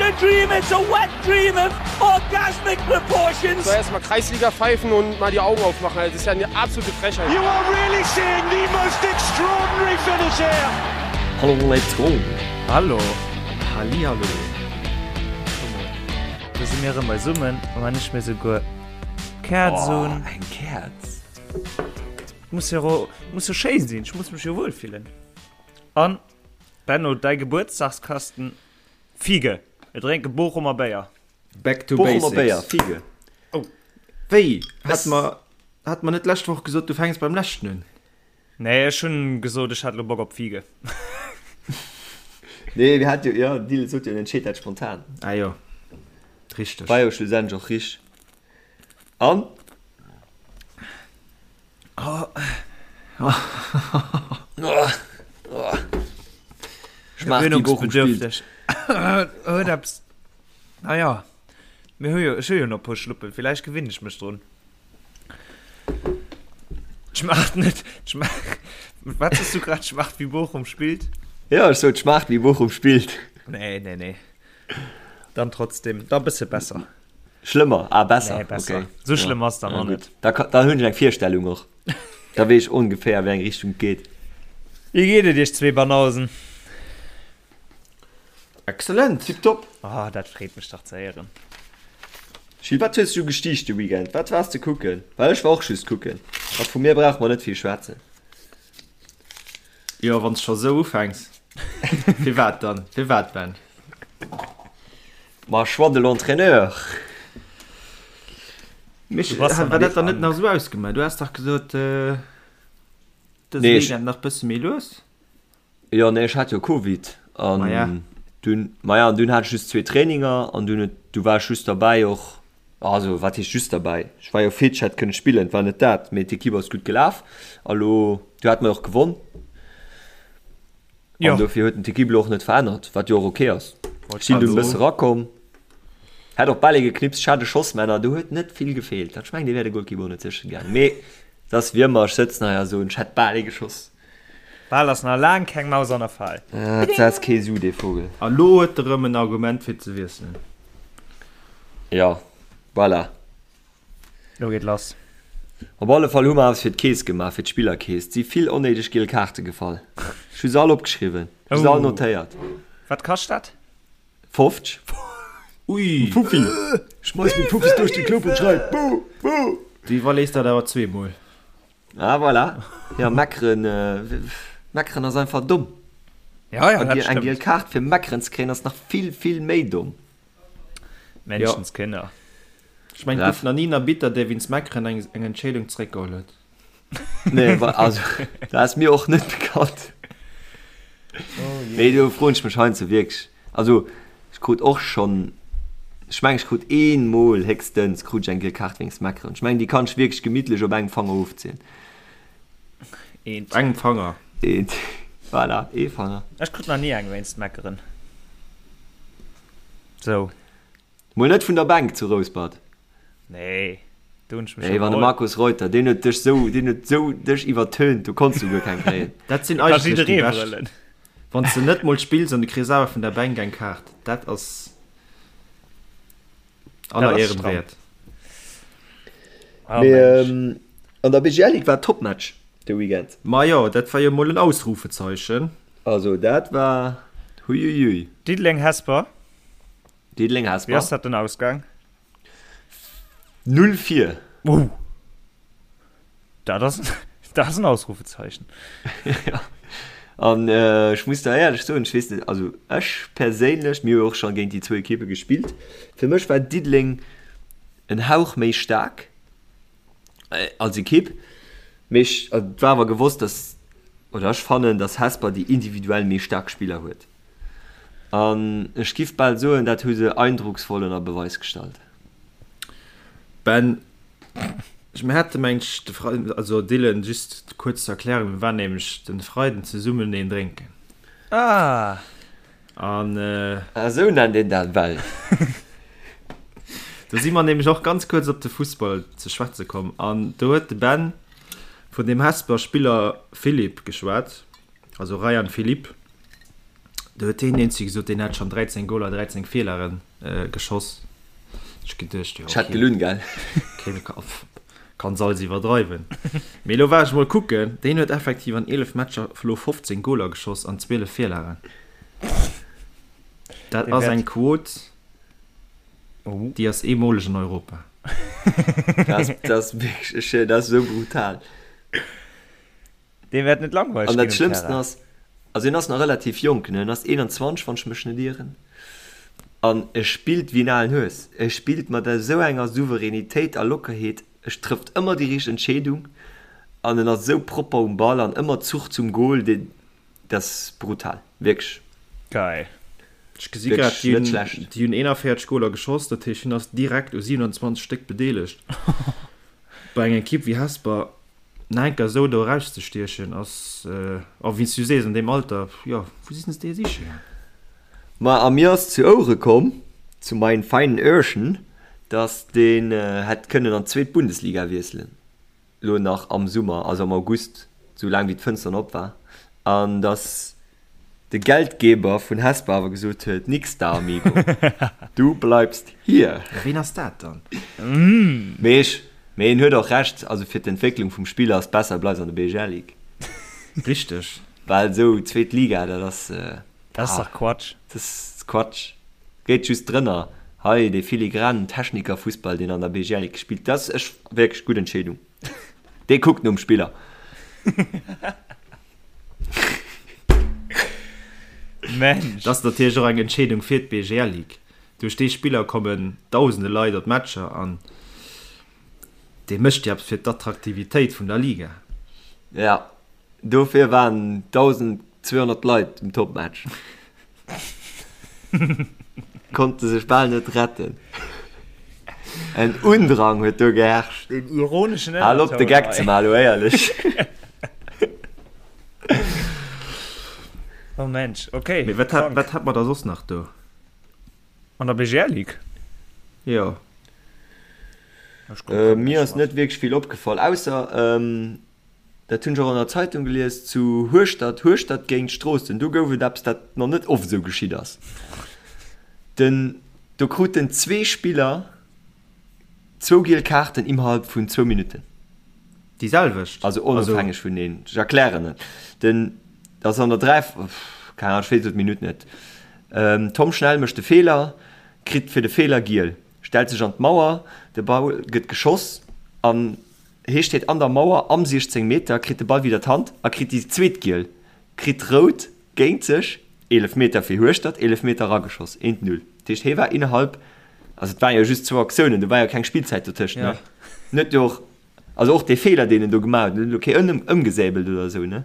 a dream, it's a wet dream of orgasmic proportions. Soll erstmal Kreisliga pfeifen und mal die Augen aufmachen. Das ist ja eine absolute Frechheit. You are really seeing the most extraordinary finish here. Hallo, let's go. Hallo. Hallihallo. Do si mir erëm beisummen, a wann ech mir souguer Käerz Oh, un. eng Käerz. Muss jo, muss jo schéin sinn, ech muss mech jo wuel fillen. An, Benno, däi Gebuertsdagskasten, Fiege! Mir drénke Bochumer Béier. Back to Bochumer Béier, basics. Fiege. Oh. Wéi? Hat mer, hat mer net d'lescht Woch gesot, du fänks beim leschten un? Nee, ech hunn gesot, ech hätt elo Bock op Fiege. Nee, mir hat jo, jo, den Dylan sot jo, en entscheet dat spontan. Ah jo, richteg. War jo schlussendlech och richteg. An? Gewöhnungsbedürftig. Huet eppes. Naja, mir hu jo, ech hu jo nach e puer Schluppen, villäicht gewinne ech mech drun. Schmaacht net, schmaacht, wat hues du grad, schmaacht wéi Bochum spillt? Ja, ech sot schmaacht wéi Bochum spillt. Nee, nee, nee. Dann trotzdem, da bësse besser. Schlëmmer, ah besser, Nee, besser. okay. Sou schlëmm ass dann Ja, och gutt. net. Da, ka- da hunn ech eng Virstellung och. Da weess ech ongeféier, wéi eng Richtung et geet. Wéi geet et iech zwee Banausen? Excellent! Tiptop. Ah, dat freet mech dach ze héieren. Gilles, wat hues du gestiicht de Weekend? Wat waars de kucken? Well ech war och just kucken. A vu mir brauche mer net vill schwätzen. Jo, wann s scho sou ufänks. Firwat dann? Firwat, Ben? Ma choix de l'entraîneur. Mich, Du bass war dann dat dann net krank. nach sou ausgemaach? Du has dach gesot, äh, dëse Nee, ech- Weekend nach bësse méi lues? Jo, nee, ech hat jo Covid an Maja. dunn, maja, an dunn hat ech just zwee Traininger an dunn huet, du war ech just derbäi och, also wat heescht just derbäi, ech war jo fit, ech hätt kënne spillen, et war net dat, mee d'Ekipp ass gutt gelaf a lo, du hat mer och gewonn. Jo. An dofir huet en d'Ekipp elo och net verännert, wat jo och ok ass. Wollt Ech sinn grad dunn e bësse soen. rakomm, hätt och bal ee geknipst, ech hat e Schoss, mä na, do huet net vill gefeelt. Ech mengen, dee wär de Golkipp och net sécher gaangen, mee et ass wéi ëmmer, ech sëtzen hei a soen, ech hätt bal ee geschoss. Bal ass nach laang keng Maus an der Fal. Et setzt kee Su, dee Vogel. A lo huet e rëm en Argument fir ze wiesselen. Jo, voilà. Lo geet lass. Op alle Fall hu mer eppes fir d'Keess gemaach, fir d'Spillerkeess. Et si vill onnéideg giel Kaarte gefall. Ech hu se all opgeschriwwen, ech hu se all notéiert. Wat kascht dat? 50. Ui! Fuffi! Schmeiss meng Fuffis duerch de Club und schrei, Buh! Buh! Du iwwerlees dat awer zweemol. Ah voilà. Ja, meckeren, meckeren ass einfach domm. Ja, ja, dat Eng stëmmt. giel Kaart fir meckeren ze kréien ass nach vill, vill méi domm. Menschenskinner. Ech mengen, et gouf nach ni en Arbitter, dee wéinst Meckeren eng eng Entscheedung zeréckgeholl huet. Nee, wa, also, dat ass mir och net bekannt. Mee do froen ech mech heiansdo wierklech, also ech krut och schonn, ech mengen ech krut eemol héchstens krut ech eng giel Kaart wéinst Meckeren. Ech mengen déi kann ech wierklech gemittlech op engem Fanger ofzielen. Eent. Op engem Fanger. Eent, voilà, ee Fanger. Ech krut nach ni eng wéinst Meckeren. Sou. Mol net vun der Bänk zu Rouspert? Nee, do hunn ech mech Nee, wann de iwwerholl. Markus Reuter, deen huet dech sou, deen huet sou dech iwwertönt, do konns du guer keng kréien. Dat sinn Ka eigentlech déi jidderee bescht. brëllen. Wann s de net mol spills an du kriss awer vun der Bänk eng Kaart, dat ass aller Dat ass Ehren stramm. wäert. Oh Mee Mensch. an der BGL Ligue war Topmatch de Weekend. Majo, dat war jo mol en Ausrufezeichen. Also dat war huiuiui. Diddeleng-Hesper. Diddeleng Wéi Hesper. ass dat den Ausgang? 0 4. Oh! Dat ass, dat ass en Ausrufezeichen. Ja. An ech muss der éierlech soen, ech weess net, also ech perséinlech, mir hu jo och scho géint déi zwou Ekippe gespillt, fir mech war Diddeleng en Hauch méi staark als Ekipp, mee ech, et war awer gewosst, dass, oder ech fannen, dass Hesper déi individuell méi staark Spiller huet. An ech giff bal soen, dat hu se eindrucksvoll ënner Beweis gestallt. Ben, ech, mir hate mengt ech de Freiden, also Dylan, just kuerz zur Erklärung, mir waren nämlech den Freiden zesummen een drénken. Ah! An. Ah, esou nennt een dat well. Do si mer nämlech och ganz kuerz op de Fussball ze schwätze komm an do huet de Ben vun deem Hesper Spiller Philipp geschwat, also Rayan Philippe. Do huet deen eenzege gesot, deen hätt schonn 13 Goler, 13 Feelere geschoss. Ech geduecht, jo, Ech hätt gelunn, gell? Okay, kann se alles iwwerdreiwen. Mee elo war ech mol kucken, deen huet effektiv an 11 Matcher elo 15 Goler geschoss an 12 Virlagen. Dat ass eng Quot, déi ass eemoleg an Europa. Dat ass wierklech, dat ass esou brutal. Deem wäert net langweileg An dat Schlëmmsten ass, also hien ass nach relativ jonk, ne, en ass 21, wann ech mech net ieren, an e spillt wéi en alen Hues. E spillt mat esou enger Souveränitéit a Lockerheet, e trëfft ëmmer déi richteg Entscheedung an en ass esou propper um Ball an ëmmer Zuch zum Gol, deen, dat ass brutal, wierklech. Geil. Ech gesi grad, déi hunn, déi hunn 41 Goler geschoss, dat heescht hien ass direkt u 27 Stéck bedeelegt. Bei enger Ekipp wéi Hesper nach enker esou do erauszestiechen ass, a wéi s du sees, an deem Alter, jo, wou sinn se dee siche gaang? Ma a mir ass zu Ouere komm, zu meinen feinen Öhrchen, dass deen hätt kënnen an d'zweet Bundesliga wiesselen, lo nach am Summer, also am August, sou laang wéi d'Fënster nach op war, an dass de Geldgeber vun Hesper awer gesot huet, Nix da, amigo, du bleibst hier. Ja, ween ass dat dann? Mee ech, mee en huet och Recht, also fir d'Entwécklung vum Spiller ass besser e bleift an der BGL Ligue. Richteg. Well esou zweet Liga, dat ass, Dat ass dach Quatsch. Dat ass Quatsch. Geet just drënner. Hei dee filigranen Technikerfussball, deen an der BGL Ligue gespillt, dat ass ech wierklech gutt Entscheedung. Dee kuckt nom Spiller. Mensch. Dat ass natierlech och eng Entscheedung fir d'BGL Ligue. Duerch dee Spiller kommen dausende Leit op d'Matcher an dee mécht jo eppes fir d'Attraktivitéit vun der Liga. Ja, dofir waren 1.200 Leit um Topmatch. Konnte sech bal net retten. En Undrang huet do geherrscht. Den ironeschen Hal op de Geck ze man, elo éierlech. Oh Mensch, okay. Mee wat hat, wat hat mer da soss nach do? An der BGL Ligue? Jo. Äh, mir ass net wierklech vill opgefall, ausser, ähm, dat hunn ech och an der Zeitung gelies, zu Hueschtert, Hueschtert géint Stroossen, do gouf et eppes, dat nach net oft esou geschitt ass. Den, do kruten zwee Spiller zwou giel Kaarten immerhalb vun zwou Minutten. Déi selwecht? Also onofhängeg vuneen. Ech erklären et. Den, dat ass an der 3, keng Ahnung, ech weess elo d'Minutt net. Tom Schnell mécht de Feeler, kritt fir de Feeler giel, stellt sech an d'Mauer, de Ball gëtt geschoss an hee steet an der Mauer am 16 Meter, kritt de Ball widder d'Hand a kritt déi zweet giel, kritt rout géint sech, Eelefmeter fir Hueschtert, Eelefmeter erageschoss, eent Null. Dat heescht, hee war innerhalb, also et waren jo just zwou Aktiounen, do war jo keng Spillzäit dotëscht, ne? En huet jo och, also och dee Feeler, deen en do gemaach huet, en huet elo kee ëm, ëmgesäbelt oder esou, ne?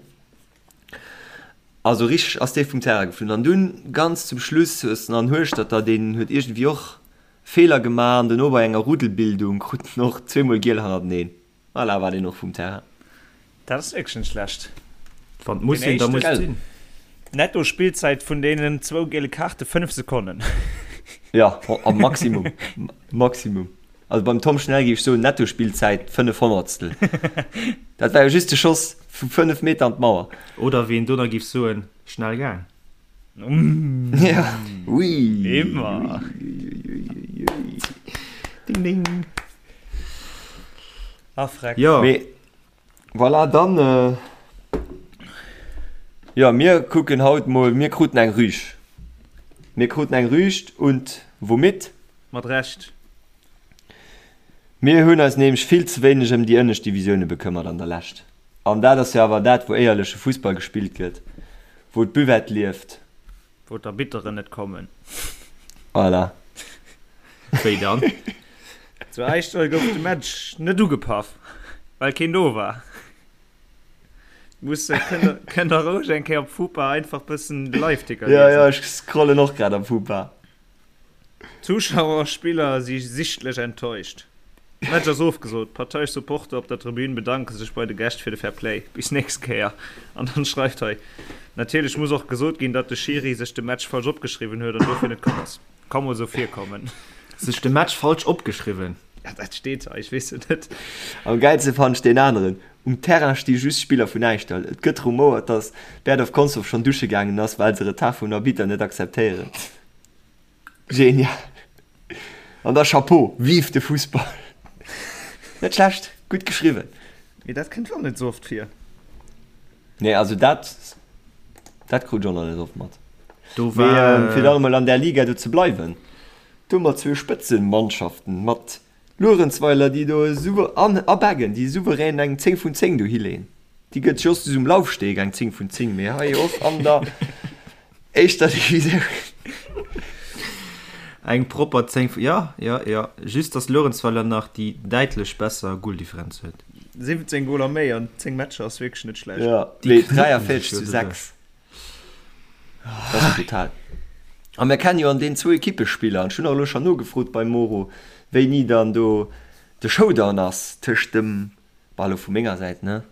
Also richteg ass dee vum Terrain geflunn. An dunn ganz zum Schluss hues de an Hueschtert da, deen huet iergendwéi och Feeler gemaach an dono bei enger Ruddelbildung krut en och zweemol giel hannerteneen. Voilà, war deen och vum Terrain. Dat ass wierklech net schlecht. Wann et muss sinn, da muss et sinn. Netto Spillzäit vun deenen zwou giele Kaarte 5 Sekonnen. Jo, am Maximum. Maximum. Also beim Tom Schnell géif ech soen, Netto Spillzäit 5 Honnertstel. Dat war jo just de Schoss vu 5 Meter an d'Mauer. Oder wéi een do nach géif soen, schnell gaang. Ja, ui. Immer. Ding, ding. Ah, freck. Jo. Mee voilà, dann, äh, jo, mir kucken haut mol, mir kruten eng Rüg. Mir kruten eng Rügt und womit? Mat Recht. Mir hunn eis nämlech vill ze wéineg ëm déi ënnescht Divisioune bekëmmert an der Lescht. An dat ass jo awer dat, wou éierleche Fussball gespillt gëtt, wou d'Buvette lieft. Wou d'Arbitteren net kommen. Voilà. Wéi dann? Zu Äischdall gouf de Match net ugepaff, well keen do war. Muss, kënnt der roueg eng Kéier op Fupa einfach bëssen de Liveticker liesen. Jo, jo, ech scrollen och grad am Fupa. Zuschauer a Spiller si sichtlech enttäuscht. Match ass ofgesot. Parteiesch Supporter op der Tribün bedanke sech bei de Gäscht fir de Fair Play. Bis nächst Kéier. An dann schreift hei, Natierlech muss och gesot ginn, datt de Schiri sech de Match falsch opgeschriwwen huet an dofir net komm ass. Ka mol sou virkommen. Sech de Match falsch opgeschriwwen? Ja, dat steet hei, ech weess et net. Am gäilste fannen ech deen aneren, Um Terrain sti just Spiller vun Äischdall. Et gëtt rumouert, datt Berdorf Consdorf schonn dusche gaangen ass, well se Retard vum Arbitter net akzeptéieren. Genial! An da Chapeau! Vive de Fussball! Net schlecht, gutt geschriwwen. Mee dat kënnt och net sou oft vir. Nee, also dat, dat krut ech och nach net oft mat. Do Mee war. fir dann emol an där Liga do ze bleiwen, do hu mer zwou Spëtzenmannschaften mat Luerenzweiler, déi do esou an a Beggen, déi souverän eng 10 vun 10 do hileeën. Déi gëtt just um Laufsteg eng 10 vun 10, mee hei och an der éischter Divisioun. Eng propper 10 vu, jo, jo, jo. Just dass Luerenzweiler nach déi däitlech besser Goldifferenz huet. 17 Goler méi an 10 Matcher ass wierklech net schlecht. Jo, Déi mee knuppen 43 sech jo zu doduerch. 6. Dat ass brutal. A mir kennen jo an deenen zwou Ekippe Spiller. An ech hunn och elo schonn nogefrot beim Moro, wéini dann do de Showdown ass tëscht dem, bah elo vu menger Säit, ne,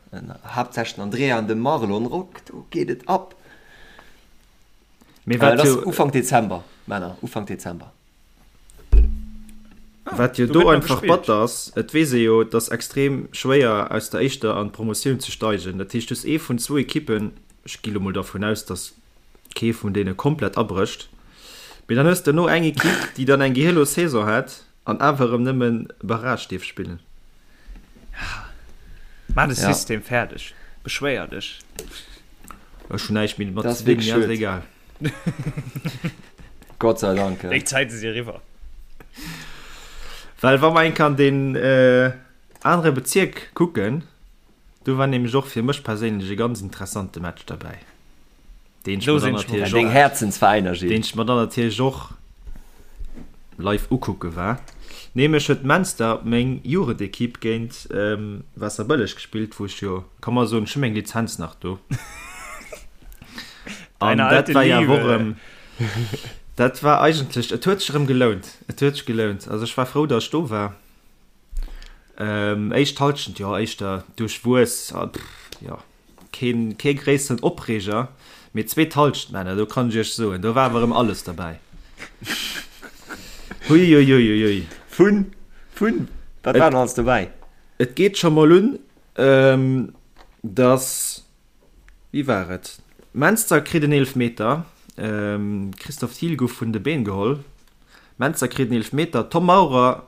haaptsächlech den Andrea an dem Marlon Rock. Do geet et ab. Mee Äh, wat dat ass jo, Ufank Dezember, Männer, Ufank Dezember. wat jo do do gëtt nach einfach gespillt. batter ass, et weess ee jo, et ass extrem schwéier aus der éischter an d'Promotioun ze steigen. Dat heescht, du hues ee vun zwou Ekippen, ech gi lo mol dervun aus, datt kee vun deene komplett abrécht, mee dann hues de no eng Ekipp, déi dann eng gehirlos Saison hat an awer erëm nëmmen Barrage dierf spillen. Maach de Ja. System fäerdeg, beschwéier dech. Ech hunn näischt méi domat Dat ze ass dinn, wierklech mir ass schued. egal. Gott sei Dank. Déi Zäite si eriwwer. Well wa mer eng Kéier an deen anere Bezierk kucken, do war nämlech och fir mech perséinlech e ganz interessante Match derbäi, deen ech Do mer dann sinn ech mol natierlech Deng och, Häerzensveräiner, deen Gilles. ech mer dann natierlech och live ukucke war. Nämlech huet Menster, meng Jugendekipp, géint Waasserbëlleg gespillt, wou ech jo, ka mer soen, ech hu meng Lizenz nach do. An Deine dat alte war ja Liebe. och erëm, dat war eigentlech, et huet sech erëm gelount, et huet sech gelount. Also ech war frou, datt ech do war. Éischt Halschent, jo, éischter duerchwuess, jo, keen, kee gréisseren Opreeger, mee zweet Halschent, Männer, do kann ech iech soen, do war awer erëm alles derbäi. Huiuiuiui. Vun, vun, wat war denn alles dobäi? Et geet scho mol un, datt, wéi war et, Menster kritt en Eelefmeter, Christophe Thiel gouf vun de Been geholl, Menster kritt en Eelefmeter, Tom Maurer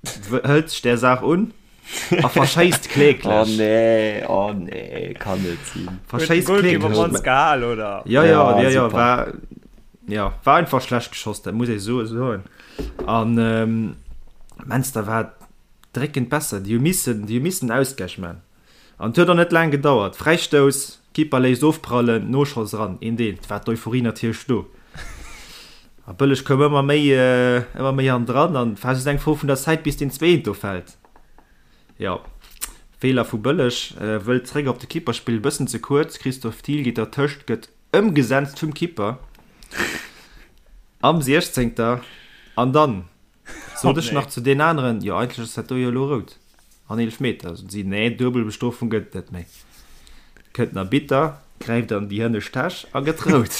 hëlt sech där Saach un a verschéisst kläglech. Oh nee, oh nee, kann net sinn. Verschéisst Goalkeeper kläglech. Mans gehal, oder? Ja, ja, Ja, ja, ja, super. war, ja, war einfach schlecht geschoss, dat muss ee so soen. An ähm, Menster war dréckend besser, déi hu missen, déi hu missen Ausgleich man. An et huet och net laang gedauert, Fräistouss, Keeper léisst ofprallen, Noschoss eran, een deen, et war d'Euphorie natierlech do. A Bëlleg koum ëmmer méi, ëmmer méi hannendran an et war just eng Fro vun der Zäit bis deen zweeten do fält. Jo, Feeler vu Bëlleg, wëllt zréck op de Keeper spillen, bëssen ze kuerz, Christophe Thiel geet dertëscht, gëtt ëmgesenzt vum Keeper am 16. An dann Sot ech nach zu deen aneren, jo eigentlech ass dat do jo elo rout an Eelefmeter. Soten si, nee, Duebelbestrofung gëtt et net méi. Kënnt den Arbitter, gräift an déi hënnescht Täsch a gëtt rout.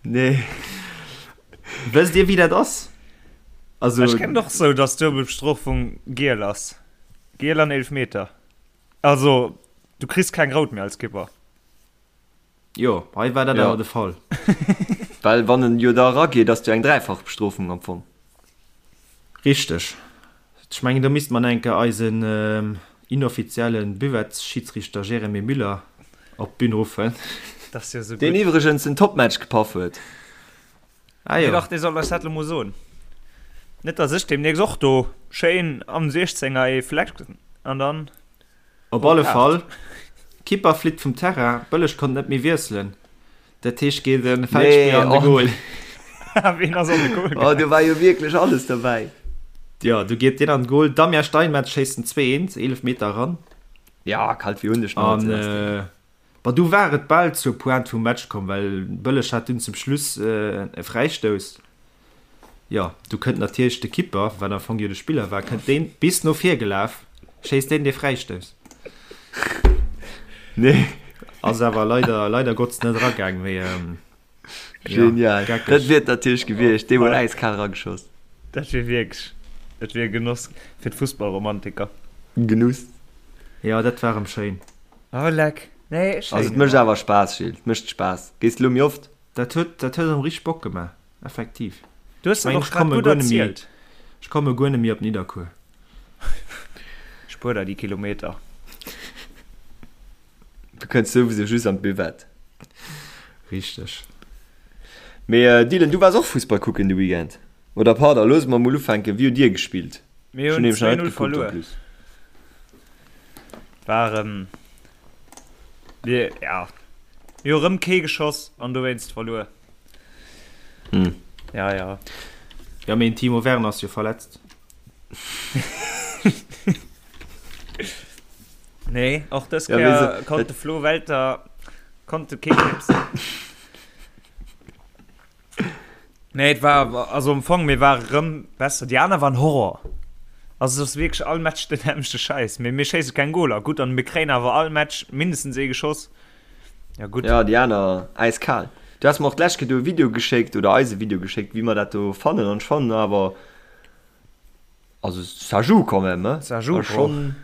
Nee. Wësst Dir wéi dat ass? Also. Ech kennen och sou, dass Duebelbestrofung giel ass. Giel an Eelefmeter. Also du kriss keng rout méi als Kipper. Jo, hei war dat Ja. awer de Fall. Well wann en jo da erageet, ass jo eng dräifach Bestrofung am Fong. Richteg. Ech mengen, do misste mer nach eng Kéier eisen inoffizielle Buvettsschiedsrichter Jeremy Müller op d'Bün ruffen. Dat ass jo esou Deen gutt. iwwregens en Topmatch gepaff huet. Ah Nee, jo. dach, dee soll eis dat elo mol soen. Net, dass ech deemnächst och do schéin am Siechzenger ee flecken an dann. Op alle Fall, Kipper flitt vum Terrain, Bëlleg konnt net méi wiesselen, dat heescht geet e Feldspiller an de Goal. Ween ass an de Goal Oh, do war jo wierklech alles derbäi. Jo, du geet deen an de Goal, Damien Steinmetz schéisst den 2, 1, 11 Meter eran. Ja, kalt wéi hunn ech nach An Bon, du war et bal zur Pointe vum Match komm, well Bëlleg hat dunn zum Schluss e Fräistouss. Jo, du kënnt natierlech de Kipper, wat am Fong jo de Spiller war, kënnt deen bis no vir gelaf, schéisst deen dee Fräistouss. Nee. Ass awer leider, leider Gottes net eragaang, mee Genial. Dat wier et natierlech gewiescht, dee huet äiskal erageschoss. Dat wier wierklech. Et wier e Genoss fir d'Fussballromantiker. Genuss. Jo, dat war erëm schéin. Oh leck. Nee, schéin. Also et mécht awer Spaass, Gilles. Et mécht Spaass. Gees de lo méi oft? Dat huet, dat huet erëm richteg Bock gemaach, effektiv. Du hues Ech dat mengen, och ech grad komme gutt guer net méi, erzielt. ech komme guer net méi op Nidderkuer. Spuer der déi Kilometer. Du kënns souwisou just an d'Buvette. Richteg. Mee Dylan, du waars och Fussball kucken de Weekend? Oder pardon, loosse mer mol ufänken, wéi hutt dir gespillt? Mir Ech hunn hunn nämlech nach net 2-0 gekuckt en verluer. plus. War erëm, mir, ja, mir hu rëm kee geschoss an dowéinst verluer. Hm. Ja, ja. Ja, mee den Timo Werner ass jo verletzt. Nee, och dës Ja, wéi Kéier se, konnt de Flo Welter konnt de kee knipsen. Nee, et war, also am Fong, mir ware rëm besser. Déi aner waren Horror. Also et ass wierklech all Match den nämmlechte Schäiss. Mee mir schéisse keng Goler. Gutt, an mir kréien awer all Match mindestens ee geschoss. Ja gutt. Ja, déi aner äiskal. Du has mer och d'lescht Kéier do e Video geschéckt, oder eis e Video geschéckt, wéi mer dat do fannen. An ech fannen awer, also ça joue quand même, hein. Ça joue, Ass schonn,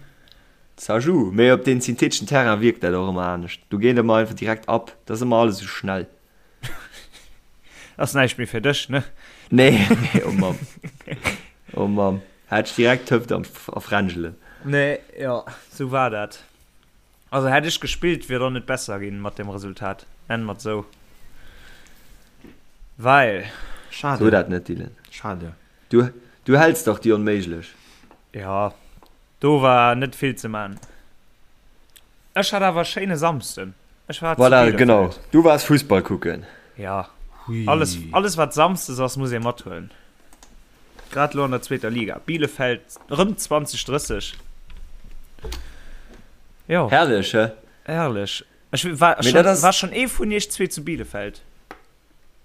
ça joue. Mee op deem syntheteschen Terrain wierkt dat och ëmmer anescht. Do geet ëmmer einfach direkt ab. Dat ass ëmmer alles esou schnell. Ass näischt méi fir dech, ne? Nee, nee, oh Mamm. Oh Mamm. Hat ech direkt d'Hëft am, a Fränjelen. Nee, jo, sou war dat. Also hätt ech gespillt, wier et och net besser ginn mat dem Resultat. Nennen mer et sou. Well. Schade. So dat net, Dylan. Schade. Du, du häls dach déi Onméiglech. Jo, do war net vill ze man. Ech hat awer e schéine Samsden. Ech war zu Voilà, Bielefeld. genau. Du waars Fussball kucken. Ja. Hui. Alles, alles wat Samsdes ass, muss ee mathuelen. Grad elo an der zweeter Liga. Bielefeld rëm 20, 30. Jo. Herrlech, hä? Herrlech. Ech war Mee schon, dat ass. war schon ee vun iech zwee zu Bielefeld?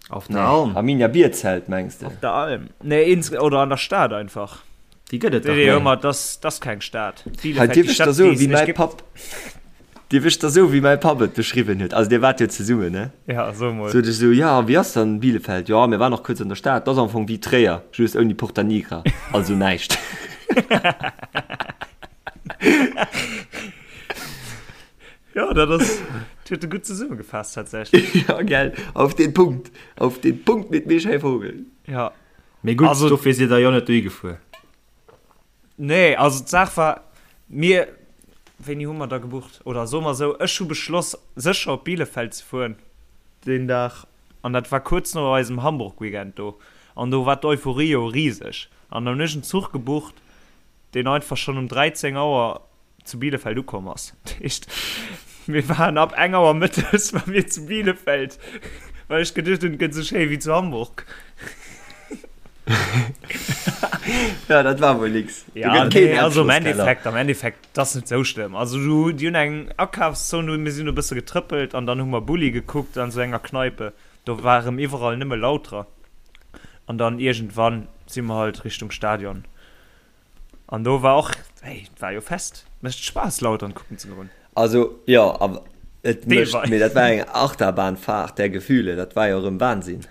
Auf der Alm. Arminia Bierzelt mengs de? Op der Alm. Nee, ins, oder an der Stad einfach. Déi gëtt et dach Nee, net. ëmmer, das, das keng Stad. Hei, Bielefeld, dierf déi ech der Stad, soen, déi es wéi nicht mäi gibt. Papp, dierf ech der soen, wéi mäi Papp et beschriwwen huet? Also dir waart jo zesummen, ne? Ja, so mol. Sot ech esou, ja, wéi ass dann Bielefeld? Jo, mir waren och kuerz an der Stad, dat ass am Fong wéi Tréier, just ouni Porta Nigra, also näischt. Ja, dat ass, dat huet e gutt zesummegefaasst tatsächlech. Ja, gell, auf den Punkt, auf den Punkt mit Michel Vogel. Ja. Mee gutt, Also- dofir sidd der jo net dohi gefuer. Nee, also d'Saach war, mir, wéini hu mer da gebucht? Oder soe mer esou, ech hu beschloss, sécher op Bielefeld ze fueren deen Dag. An dat war kuerz no eisem Hamburg-Weekend do. An do war d'Euphorie jo riseg. An dann hunn ech en Zuch gebucht, deen einfach schonn um 13 Auer zu Bielefeld ukomm ass. Dat heescht, mir waren ab eng Auer mëttes war mir zu Bielefeld, well ech geduecht hunn, et gëtt esou schéi wéi zu Hamburg. Ja, dat war wuel nix. Do Ja, gëtt keen nee, also am Erdgeschosskeller. Endeffekt, am Endeffekt, dat ass net esou schlëmm. Also du, déi hunn eng Akafszon, mir sinn e bësse getrëppelt an dann hu mer Bulli gekuckt an esou enger Kneipe. Do war erëm iwwerall nëmme Lauterer. An dann iergendwann si mer halt Richtung Stadion. An do war och, hey, et war jo Fest. Mécht Spaass Lautern kucken ze goen. Also jo, awer et mécht, Deelweis. mee dat war eng Achterbahnfahrt der Gefühle, dat war jo erëm Wahnsinn.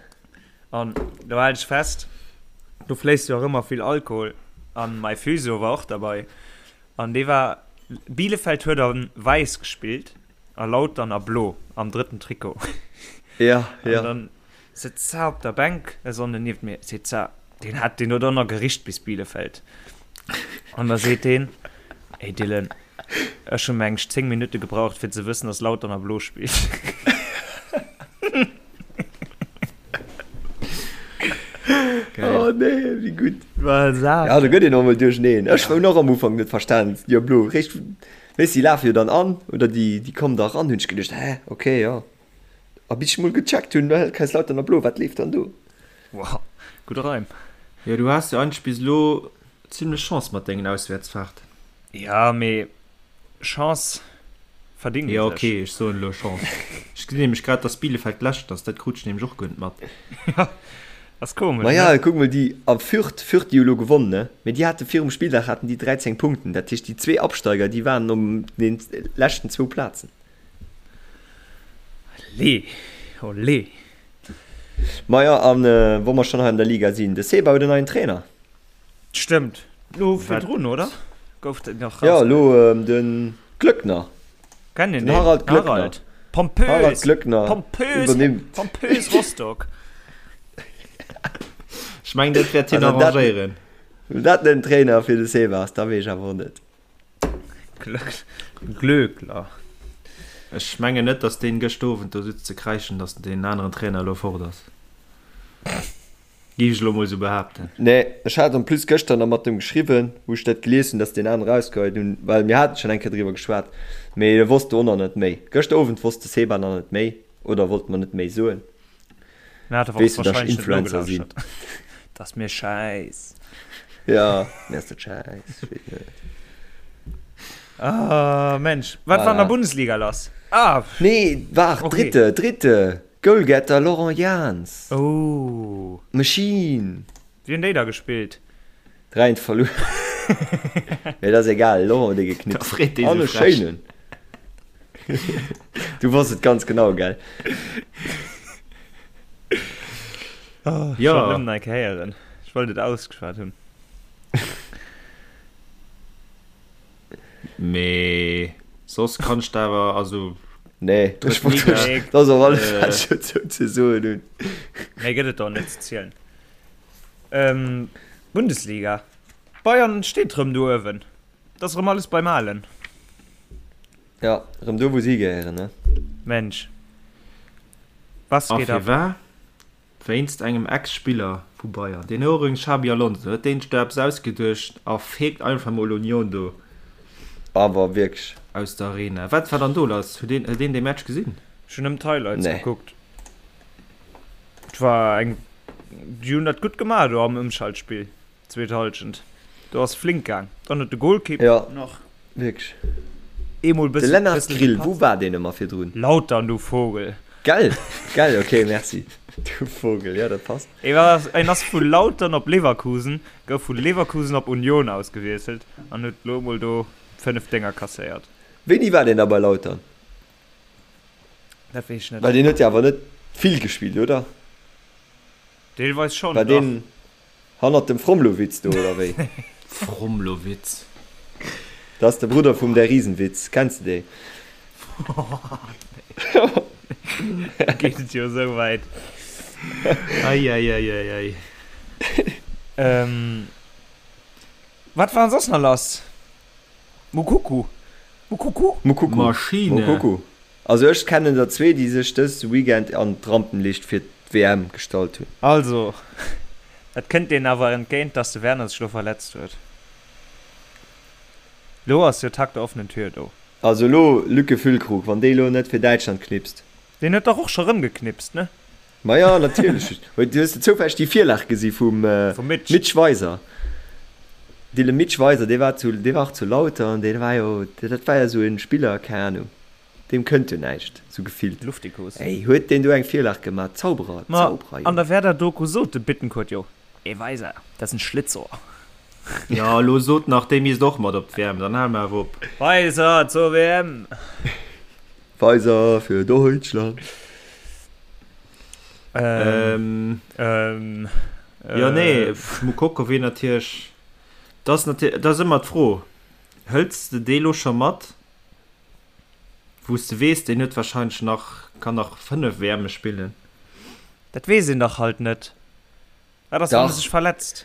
An do hal ech fest, do fléisst jo och ëmmer vill Alkohol. An mäi Physio war och derbei. An dee war, Bielefeld huet a wäiss gespillt a Lautern a blo am drëtten Trikot. Ja, ja. An dann Sëtzt za op der Bänk e Sonnden nieft mir, seet za, deen hat deen huet och nach gericht bis Bielefeld. An da seet deen, Ey Dylan, ech hu meng 10 Minutte gebraucht fir ze wëssen, dass Lautern a Blo spillt. Oh nee, wéi gutt. War Ja, do gëtt een och mol duercheneen. Ech hunn och am Ufank net verstan, jo blo, réischt, weess, déi lafe jo dann an oder déi, déi kommen da eran, hunn ech geduecht, hä, okay, jo. A bis ech mol gecheckt hunn, well Kaiserslautern a Blo, wat leeft dann do? Wow, gudde Reim. Jo, du has jo eigentlech bis elo zimlech Chance mat dengen Auswäertsfahrten. Ja, mee Chance verdingt ee Jo, sech. ok, ech soen elo Chance. Ech gesinn nämlech grad, dass Bielefeld Lescht ass, dat krut ech nämlech och guer net mat. Ja, ass komesch, Maja, ne? kuck mol déi a Fürth, Fürth déi hu lo gewonnen, ne? Mee déi hate virum Spilldag haten déi 13 Punkten, dat heescht déi zwee Absteiger, déi waren op den leschten zwou Plazen. Allez, olé. Maja, an wa mer schonn hei an der Liga sinn, de Seba huet en neien Trainer. Stëmmt. Lo virdrun, oder? Gouf den nach Ja, lo de Glöckner. Kennt een Den Harald Glöckner. Harald. Pompös. Harald Glöckner Pompös. iwwernimmt. Pompös Rostock. Ech mengen, dat wäert hien Also dat- arrangéieren. Wann dat net en Trainer fir de Seba ass, da weess ech awer och net. Glöck Glöckler. Ech mengen net, datt deen gëscht Owend do sutz ze kräischen, datt deen aneren Trainer elo fort ass. Géif ech elo mol sou behaapten. Nee, ech hat en plus gëschter nach mat em geschriwwen, wou ech dat gelies hunn, dass deen anere rausgeheit hunn, well mir haten schonn eng Kéier driwwer geschwat, mee e wosst do och nach net méi. Gëschter Owend wosst de Seba nach net méi oder wollt mer net méi soen. Mir hat awer och Weess du, dass ech wahrscheinlech net Influencer sinn. nogelauschtert. Dat ass mir schäiss. Ja, mir ass dat schäiss, ech weess net. Ah, Mensch, wat war an der Voilà. Bundesliga lass? Ah, Nee, waart, Okay. Dritte, Dritte! Goalgetter Laurent Jans. Oh. Machine. Wéi hunn déi da gespillt? 3 eent verluer. Mee dat ass egal, Laurent huet ee geknipst. Da freet dee An sou e frech. schéinen. Du wosst et ganz genau, gell? Oh, ech Ja. wollt nëmmen eng Kéier héieren. Ech wollt et ausgeschwat hunn. Mee soss kann ech der awer, also. Nee, ech wollt Liga, dat ass och alles äh, wat ech dozou ze soen hunn. Méi gëtt et do net ze zielen. Ähm, Bundesliga, Bayern steet rëm do uewen. Et ass rëm alles beim Alen. Ja, rëm do wou si gehéieren, ne? Mensch, was A geht ab? firwat? Wéinst engem Ex-Spiller vu Bayern, deen Ouring Xabi Alonso, huet deen sech do eppes ausgeduecht a feegt einfach mol Union do. Awer wierklech. Aus der Arena. Wat war dann do lass? Huet een, huet een dee Match gesinn? Ech hunn nëmmen d'Highlights Nee. gekuckt. Et war eng, déi hunn dat gutt gemaach do am Ëmschaltspill. Zweet Halschent, do ass flink gaang. Dann huet de Golkipp Ja, nach wierklech. eemol De bëssen Lennart bëssen Grill, wou gepatzt. war deen ëmmer virdrun? Lautern, du Vogel! Gell? Gell, ok, merci. Du Vogel, ja, dat passt. E war, en ass vu Lautern op Leverkusen, gouf vu Leverkusen op Union ausgewiesselt an huet lo emol do 5 Dénger kasséiert. Wéini war deen da bei Lautern? Dat weess ech net. Well deen huet jo awer net vill gespillt, oder? Deelweis schonn, War dach. deen Hannert dem Fromlowitz do, oder wéi? Fromlowitz. Dat ass de Brudder vum Der Riesenwitz. Kenns de dee? Geet et jo esou wäit. Eieieiei. Ähm, wat war soss nach lass? Mukuku. Mukuku? Mukuku. Maschine. Mukuku. Also ech kennen der zwee déi sech dës Weekend an d'Rampenlicht fir d'WM gestallt hunn. Also, et kënnt deenen awer entgéint, dass de Werner sech lo verletzt huet. Lo ass jo Tag der offenen Tür do. Also elo Lücke Füllkrug, wann dee lo net fir Däitschland knipst. Deen huet dach och scho rëm geknipst, ne? Maja natierlech. Hues de zoufälleg déi Virlag gesi vum Mitch. Mitch Weiser? Dee Mitch Weiser, dee war zu, dee war och zu Lautern, dee war jo, dat war jo esou e Spiller, keng Ahnung. Deem kënnt jo näischt, sou gefillt. Luftikus. Ey, huet deen do eng Virlag gemaat? Zauberer, Ma Zauberer, an Jong. der Werder-Doku sot de Bittencourt jo, Ee Weiser, dat ass en Schlitzohr. Jo, elo sot nach, dee misst och mat op d'WM, dann hale mer awer op. Weiser zur WM! Weiser für Deutschland. Ähm, ähm, Jo, nee, äh. Moukoko wier natierlech, dat ass natierlech, dat ass ëmmer d'Fro, hëls de dee lo scho mat? Wou s de weess, deen huet wahrscheinlech nach, kann nach 5 WMe spillen. Dat weess een dach halt net. Wat ass, wann e Dach. sech verletzt?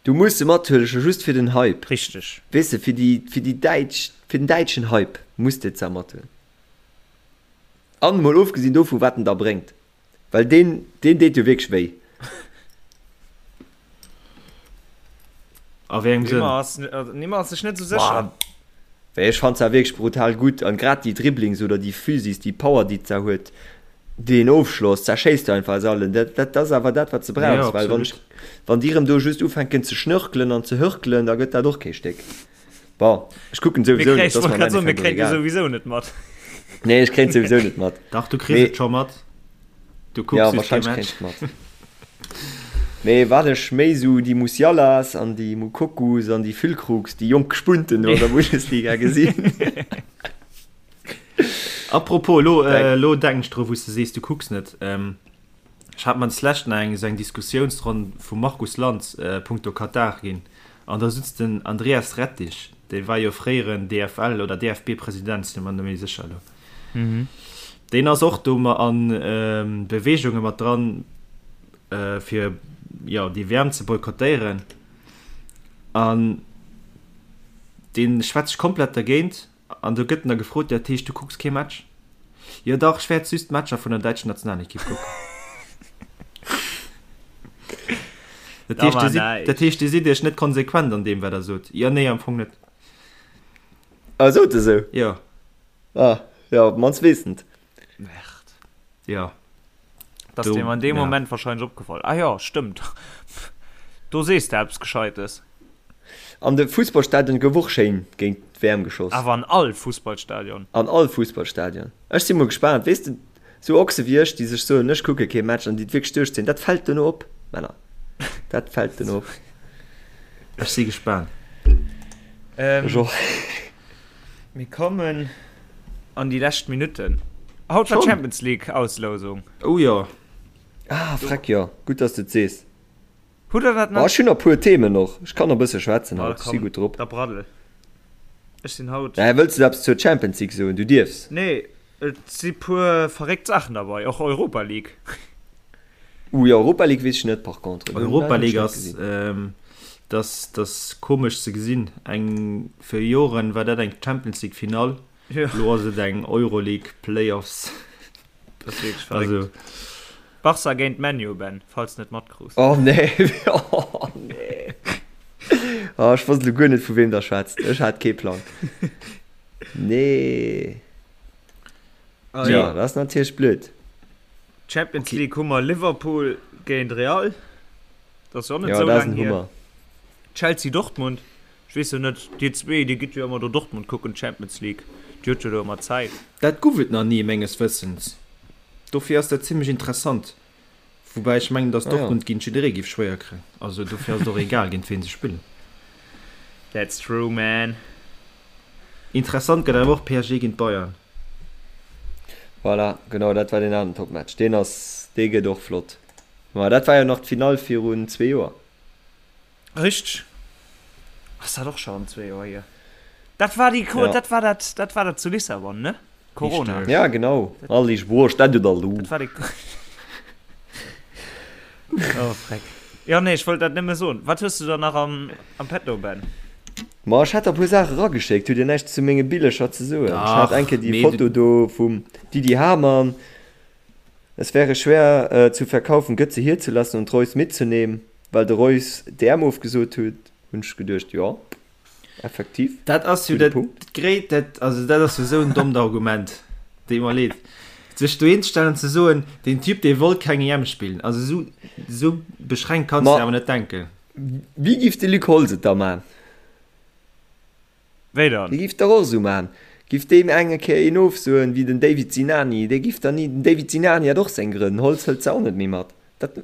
Du muss se mathuelen, scho just fir den Hype. Richteg. Weess de, fir déi, fir déi däitsch, fir den däitschen Hype muss de se mathuelen. An mol ofgesinn dovu wat en da bréngt. Well deen, deen deet jo wierklech wéi. A wéi engem Sënn? Nimmer ass, Nimmer ass sech net esou sécher. Well ech fannt se wierklech brutal gutt an grad déi Dribblings oder déi Physis, déi Power déi d'Sa huet, deen Ofschloss, zerschéisst du einfach aus allen. Dat, dat ass awer dat wat s de brauchs, Ja, well wann absolut. ech, wann déi erëm do just ufänken ze schnörkelen an ze hörkelen, da gëtt dat och kee Stéck. Bon, ech kucken Mir souwisou kréien, net, ech dat ass wollt mer am grad soen, mir Endeffekt och kréien jo egal. souwisou net mat. Nee, ech kréien souwisou net mat. Dach, du kriss Mee et scho mat. Du kucks ja, just kee wahrscheinlech Match. kréien ech et mat. Mee wat ech méi sou déi Musialas an déi Mukokus an déi Füllkrugs, déi jonk Spunten do an der Bundesliga gesinn. Apropos, elo, Denk. elo denken ech dru wou s de sees, du kucks net. Ech hat mer deslescht nach eng esou eng Diskussiounsronn vum Markus Lanz punkto Katar ginn. An da sutz den Andreas Rettig, dee war jo fréieren DFL oder DFB-President, sinn mer net méi sécher elo. Deen ass och do ma an Beweegunge mat dran, fir jo déi WM ze boykottéieren. An dee schwätzt sech komplett dergéint. An do gëtt en da gefrot, Dat heescht, du kucks kee Match? Jo dach, ech wäert just d'Matcher vun der däitscher Nationalekipp kucken. Dat heescht, Dir sidd, dat heescht, Dir sidd Iech net konsequent an deem, wat Der sot? Jo, nee, am Fong net. Ah, sot e sou? Jo. Ah, jo, op d'mannst weess en et. Merde. Jo. Dat ass deem an deem Moment wahrscheinlech opgefall. Ah jo, stëmmt. Do sees de eppes Gescheites. An de Fussballstadion gouf och schéin géint d'WM geschoss. Awer an all Fussballstadion. An all Fussballstadion. Ech si mol gespaant. Weess de, sou Ochse wéi ech, déi sech soen, ech kucke kee Match an déi et wierklech duerchzéien, dat fält duerno op, Männer. Dat fält duerno op. Ech si gespaant. Ech och. Mir kommen an déi lescht Minutten. Haut war d'Champions League Auslousung. Oh jo. Ah, freck jo. Gutt, dass de et sees. Hutt der dat nach? Ech hunn nach puer Themen och. Ech kann nach e bësse schwätzen haut. Ech si gutt drop. Da braddel. Ech sinn haut. Mä wëlls de eppes zur Champions League soen? Du dierfs. Nee, et si puer verréckt Saachen derbei. Och Europa League. Uh jo, Europa League weess ech net par contre. Europa League ass, dass dass komesch ze gesinn. Eng fir Joren war dat eng Champions League Finall, elo ass et eng Euroleague Playoffs. Dat ass wierklech verréckt. Also. Barca géint ManU, Ben, falls de net matkruus. Oh nee, oh nee. Oh, ech wosst elo guer net vu weem der schwätzt. Ech hat kee Plang. Nee. Jo, dat ass natierlech blöd. Champions League hu mer Liverpool géint Real. Dat ass jo och net esou laang hier. Chelsea Dortmund. Ech weess jo net, dir zwee, dir gitt jo ëmmer do Dortmund kucken, d'Champions League. Dir hutt jo do ëmmer Zäit. Dat guff et nach ni, menges Wëssens. Dofir ass dat zimmlech interessant. Woubäi ech mengen, datt Dortmund géint jidderee giff schwéier kréien. Also dofir ass et och egal, géint ween se spillen. That's true, man. Interessant gëtt awer och PSG géint Bayern. Voilà, genau, dat war deen aneren Topmatch. Deen ass, dee gëtt och flott. Ma dat war jo nach d'Finall virun zwee Joer. Richteg. Ass dat och schonn zwee Joer hier? Dat war déi, ja. dat war dat, dat war dat zu Lissabon, ne? Corona. Richtig. Ja, genau. All ich boah, stand da lu. Dat war déi. Oh, freck. Ja, nee, ech wollt dat nëmme soen. Wat hues du da nach am, am Petto, Ben? Ma ech hat der e puer Saache erageschéckt. Hutt Dir näischt zu menge Billecher ze soen? Ech hat eng Kéier déi Foto do vum Didi Hamann. Es wäre schwer zu verkaufen, Götze hier zu lassen und Reus mitzunehmen, well de Reus d'EM ofgesot huet, hunn ech geduecht, jo, effektiv, Dat ass jo gudde dat Punkt. gréit, dat, also dat ass jo esou en dommt Argument, deet mer leed. Sech dohin ze stellen an ze soen, deen Typ, dee wollt keng EM spillen, also esou, esou beschränkt kanns Ma de awer net denken. wéi giff de Luc Holtz et da man? Wéi dann? Dee giff dach och esou man. Giff deem eng Kéier een ofsoen wéi den David Sinani, dee giff dann ni, den David Sinani hat och seng Grënn, den Holtz hëlt se och net méi mat. Dat,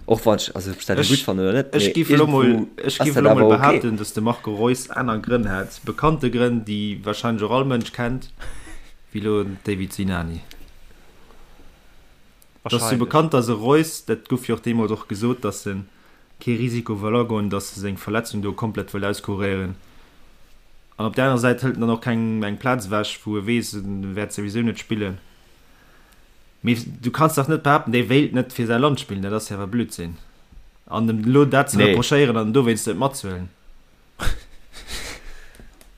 och wann ech, also ob ech dat elo gutt fannen oder net, Ech mee giff elo mol, iergendwou ech ass giff dat elo mol awer ok. behaapten, dass de Marco Reus aner Grënn hat, bekannte Grënn, déi wahrscheinlech och all Mënsch kennt, wéi elo den David Sinani. Et ass jo Wahrscheinlech. bekannt, dass e Reus, dat gouf jo och deemools och gesot, dass en kee Risiko wëll agoen, dass e seng Verletzung do komplett wëll auskuréieren. An op där anerer Säit hëlt en dann och kengem eng Plaz ewech, wou e weess, en wäert souwisou net spillen. Mee du kanns dach net behaapten, dee wéilt net fir säi Land spillen, dat ass jo awer Blödsinn. An em elo dat ze Nee. reprochéieren an en dowéinst net matzehuelen.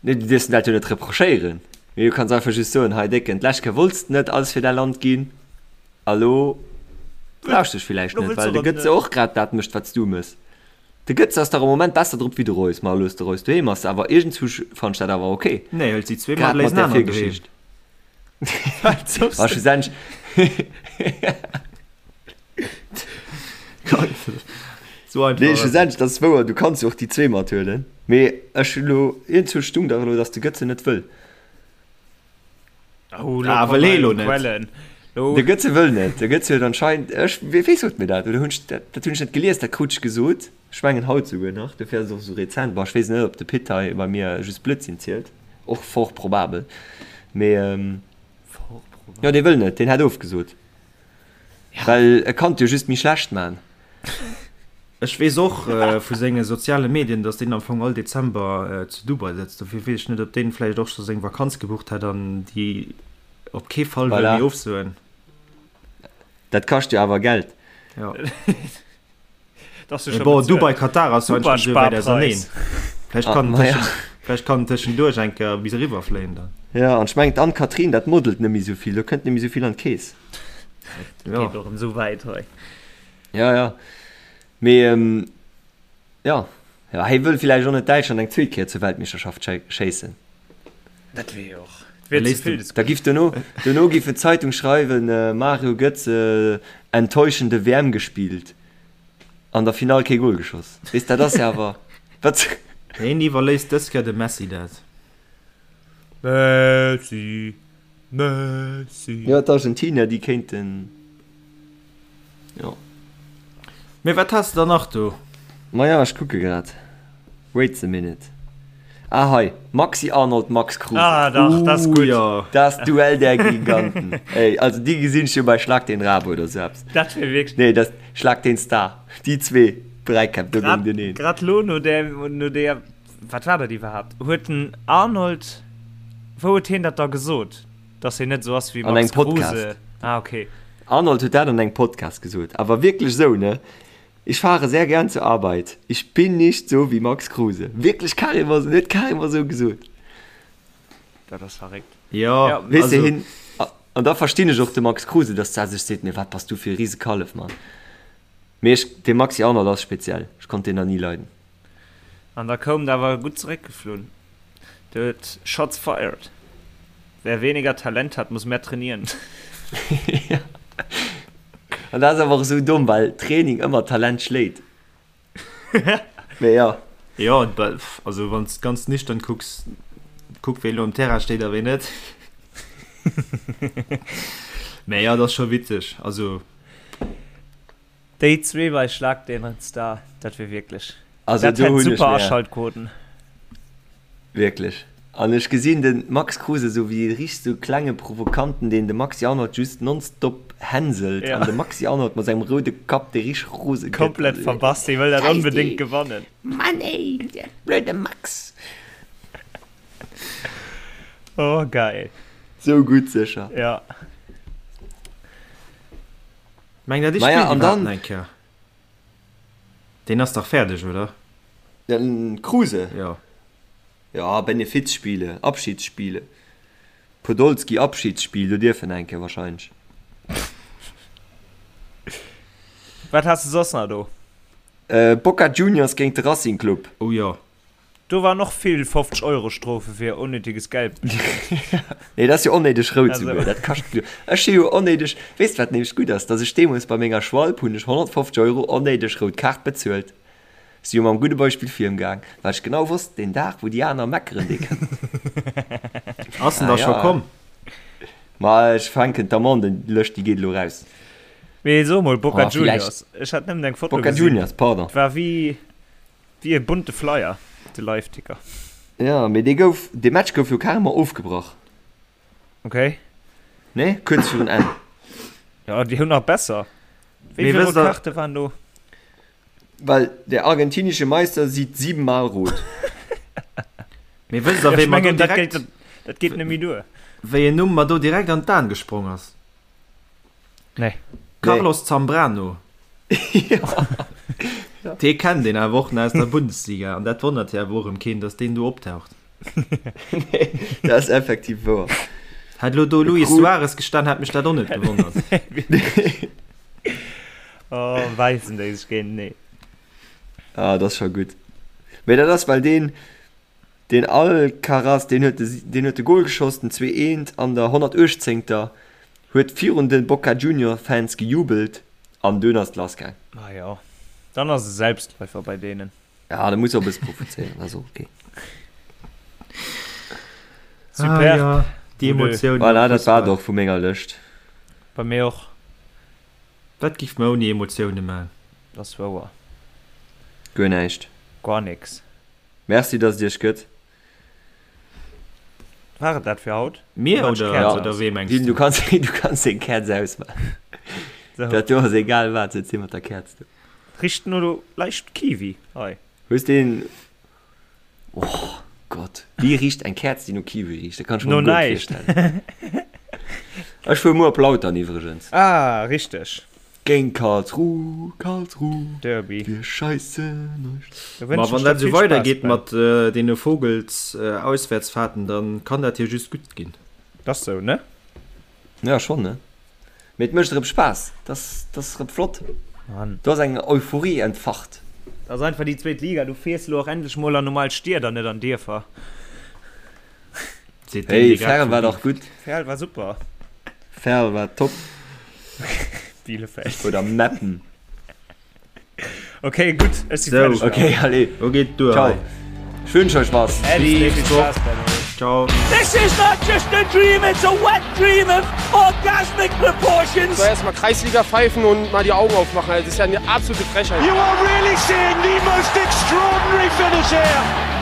Nee, du dierfs em dat jo net reprochéieren. Mee du kanns einfach just soen, hei Décken, d'lescht Kéier wollts de net alles fir däi Land ginn, a lo brauchs de dech villäicht Lo net, wëlls well de de erëm Götze net. och grad dat mécht, wat s du méchs. De Götze ass dach am Moment besser drop wéi de Reus. Ma elo ass de Reus doheem, ass awer iergendzwou fannen ech dat awer ok. Nee, hëlt si zwee mat, Grad léisst mat en där aneren doheem. Virgeschicht. A schlussendlech. So einfach. Nee, schlussendlech, dat ass wouer, du kanns jo och déi zwee mathuelen. Mee ech hunn elo, iergendzwou stung dach elo, datt de Götze net wëll. Oh, lo Ah, kommen wëll hee lo hei net. Quellen. Lo, De Götze wëll net. De Götze huet anscheinend, ech, wee, wee sot mir dat? Oder hunn ech dat, dat hunn ech net gelies, dat krut ech gesot. Ech mengen haut souguer nach, dofir ass et och esou rezent. Bon, ech weess net, ob de Pit hei bei mir just Blödsinn zielt, och fort probabel. Mee Fort probabel. jo, dee wëll net, deen hätt ofgesot. Well e kann et jo just méi schlecht man. Ech weess och vu senge soziale Medien, datt deen am Fong all Dezember zu Dubai sëtzt. Dofir weess ech net, ob deen vläicht och scho seng Vakanz gebucht hätt an déi op kee Fall wëll méi ofsoen. Dat kascht jo awer Geld. Jo. Mee bon, Dubai, Katar ass jo eigentlech net esou wäit auserneen. Vläicht kann en tëschen, vläicht kann en tëschenduerch eng Kéier bis eriwwer fléien dann. Jo, an ech mengen d'Anne-Catherine, dat modelt net méi esou vill, do kënnt net méi esou vill an d'Keess. Dat geet och esou wäit hei. Ja, ja. Mee jo, jo, hei wëll villäicht och net Däitschland eng zweet Kéier zur Weltmeeschterschaft schéissen. Dat wier jo och, dat wier ze vill des Da giff dono, dono giff d'Zeitung schreiwen, Mario Götze enttäuschende WM gespielt, an der Finall kee Gol geschoss. Weess, dat ass jo awer, wat? Hien iwwerléisst dës Kéier dem Messi dat. Messi, Messi. Jo, d'Argentinier, déi kéinten, jo. Mee wat has de dann nach do? Maja, ech kucke grad. Wait a minute. Ah, hei, Maxi Arnold, Max Kruse. Ah, dach, dat ass gutt. Jo. Das Duell der Giganten. Ey, also déi gesinn ech jo bei Schlag den Raab oder sou eppes. Dat wier wierklech. Nee, das Schlag den Star. Déi zwee Dräikäpp do géinteneen. Grad lo no där, no där. Wat war dat iwwerhaapt? Huet den Arnold, wou huet hien dat da gesot, dass hien net esou ass wéi An Max engem Podcast. Kruse? Ah, okay. Arnold huet dat an engem Podcast gesot, awer wierklech esou, ne? Ich fahre sehr gern zur Arbeit. Ich bin nicht so wie Max Kruse. Wierklech carrément esou, huet carrément esou gesot. Dat ass verréckt. Jo, Ja, Weess de, also. hien, an da verstinn ech och de Max Kruse, dass der sech seet, mee wat bass du fir e Risekallef, Mann. Mee ech, de Maxi Arnold ass speziell, ech konnt deen nach ni leiden. An da koum et awer gutt zeréckgeflunn. Do huet Shots fired. Wer weniger Talent hat, muss mehr trainieren. Ja. An dat ass awer och esou domm, well Training ëmmer Talent schléit. Mee jo. Jo, also wann s de ganz nüchtern kucks, kuck ween elo um Terrain steet a ween net. Mee jo, et ass scho witzeg. Also. Déi zwee bei Schlag den Star, dat wier wierklech, Also dat do hätt hunn ech super mär Aschaltquoten. wierklech. An ech gesinn de Max Kruse esou wéi e richteg sou klenge Provokanten, deen de Maxi Arnold just nonstop hänselt Ja. an de Maxi Arnold mat sengem roude Kapp, dee richteg rose gëtt. Komplett Also, verbass, dee wëll dat Scheiß onbedéngt dee! gewannen. Mann ey, der blöde Max! Oh geil. Sou gutt sécher. Ja. Meng der, dee Maja, spillt an iwwerhaapt dann. nach eng Kéier? Deen ass dach fäerdeg, oder? Den Kruse? Jo. Ja, Benefizspiele, Abschiedsspiele. Podolski Abschiedsspiel, do dierf en eng Kéier wahrscheinlech. Wat has de soss nach do? Boca Juniors géint de Racing Club. Oh jo. Do waren och vill 50 Euro Strofe fir onnéideges Gelb bestëmmt. Nee, dat ass jo onnéideg rout souguer. Dat kascht jo. Ech si jo onnéideg. Weess de wat nämlech gutt ass? Datt ech deemools bei menger Schwalb hunn ech 150 Euro onnéideg rout Kaart bezuelt. Si jo mam gudde Beispill virgaang, well ech genau wosst, deen Dag wou déi aner meckeren, dee kënnt. Ass en da scho komm? Ma ech fänken d'Amende-Lëscht, déi geet elo raus. Mee so mol, Boca Oh, vielleicht. Juniors, ech hat nëmmen eng Foto Boca gesinn. Juniors, pardon. War wéi. Wéi e bunte Flyer, de Liveticker. Jo, mee dee gouf, dee Match gouf jo carrément ofgebrach. Ok. Nee, kuerz virun Enn. Jo, déi hunn nach besser. Wéi Mee vill wësst rout der. Kaarte waren do? Well der argentinische Meister sieht siebenmal rot. Mee wësst der, Ja, wéi ech mer do mengen, dat direkt, geet, dat geet net méi duer. wéi en Numm mer do direkt an d'An gesprong ass? Nee. Carlos Zambrano. Dee kennt een awer och nach aus der Bundesliga an dat wonnert jo awer och erëm keen, datt deen do optaucht. Nee, dat ass effektiv wouer. Hätt elo do Luis Suarez gestan, hätt mech dat och net gewonnert. Oh, wäissen déi sech géinteneen. Ah, dat ass scho gutt. Mee dat ass, well deen, Deen Alcaraz, deen huet de, deen huet de Gol geschoss, den 2 eent an der 118. Huet virun de Boca Junior Fans gejubelt an dunn ass et lass gaang. Ah jo, dann ass e Selbstläufer bei deenen. Ja, da muss och e bësse provozéieren, dat ass och ok. Superb. Ah ja, déi Emotiounen am Voilà, dat war et Fussball. och vu menger Lëscht. Bei mir och. Wat giff mer ouni Emotioune man? Dat ass wouer. Guer näischt. Guer nix. Merci dass et iech gëtt. War et dat fir haut? Mir Oder oder, Käerz oder aus? wee mengs Dean, du? du kanns, du kanns deng Käerz ausmaachen. So. Dat do ass egal wat, sëtz hie mat der Käerz do. Richt no leicht Kiwi hei. Hues deen. Oh Gott, wéi richt eng Käerz déi no Kiwi richt? Dat kann ech mer No guer net näischt. virstellen. Ech fuer muer op Lautern iwwregens. Ah, richteg. Géint Karlsruhe, Karlsruhe, Derby. wir scheissen euch. Da Ma wënschen wann ech der dat esou vill Spaass, weidergeet Ben. mat deene Vogels-Auswäertsfahrten, dann kann dat jo just gutt ginn. Dat ass sou, ne? Ja, schonn, ne? Mee et mécht erëm Spaass, dat ass erëm flott. Mann. Do ass eng Euphorie entfacht. Dat ass einfach déi zweet Liga, du fiers elo och endlech mol an normal Stied an net an Dierfer. Seet deen, Hey, dee grad Verl vu war dach gutt. Verl war super. Verl war top. Bielefeld. Oder Meppen. Okay, gutt, ech si Sou. fäerdeg. Okay, allez. Lo geet duer Ciao. hei. Ech wünsch euch was. Äddi, Bis vill nächst Woch. Spaass, Benno. Ciao. This is not just a dream, it's a wet dream of orgasmic proportions. So erstmal Kreisliga pfeifen und mal die Augen aufmachen. Also, das ist ja eine absolute Frechheit. You are really seeing the most extraordinary finish here.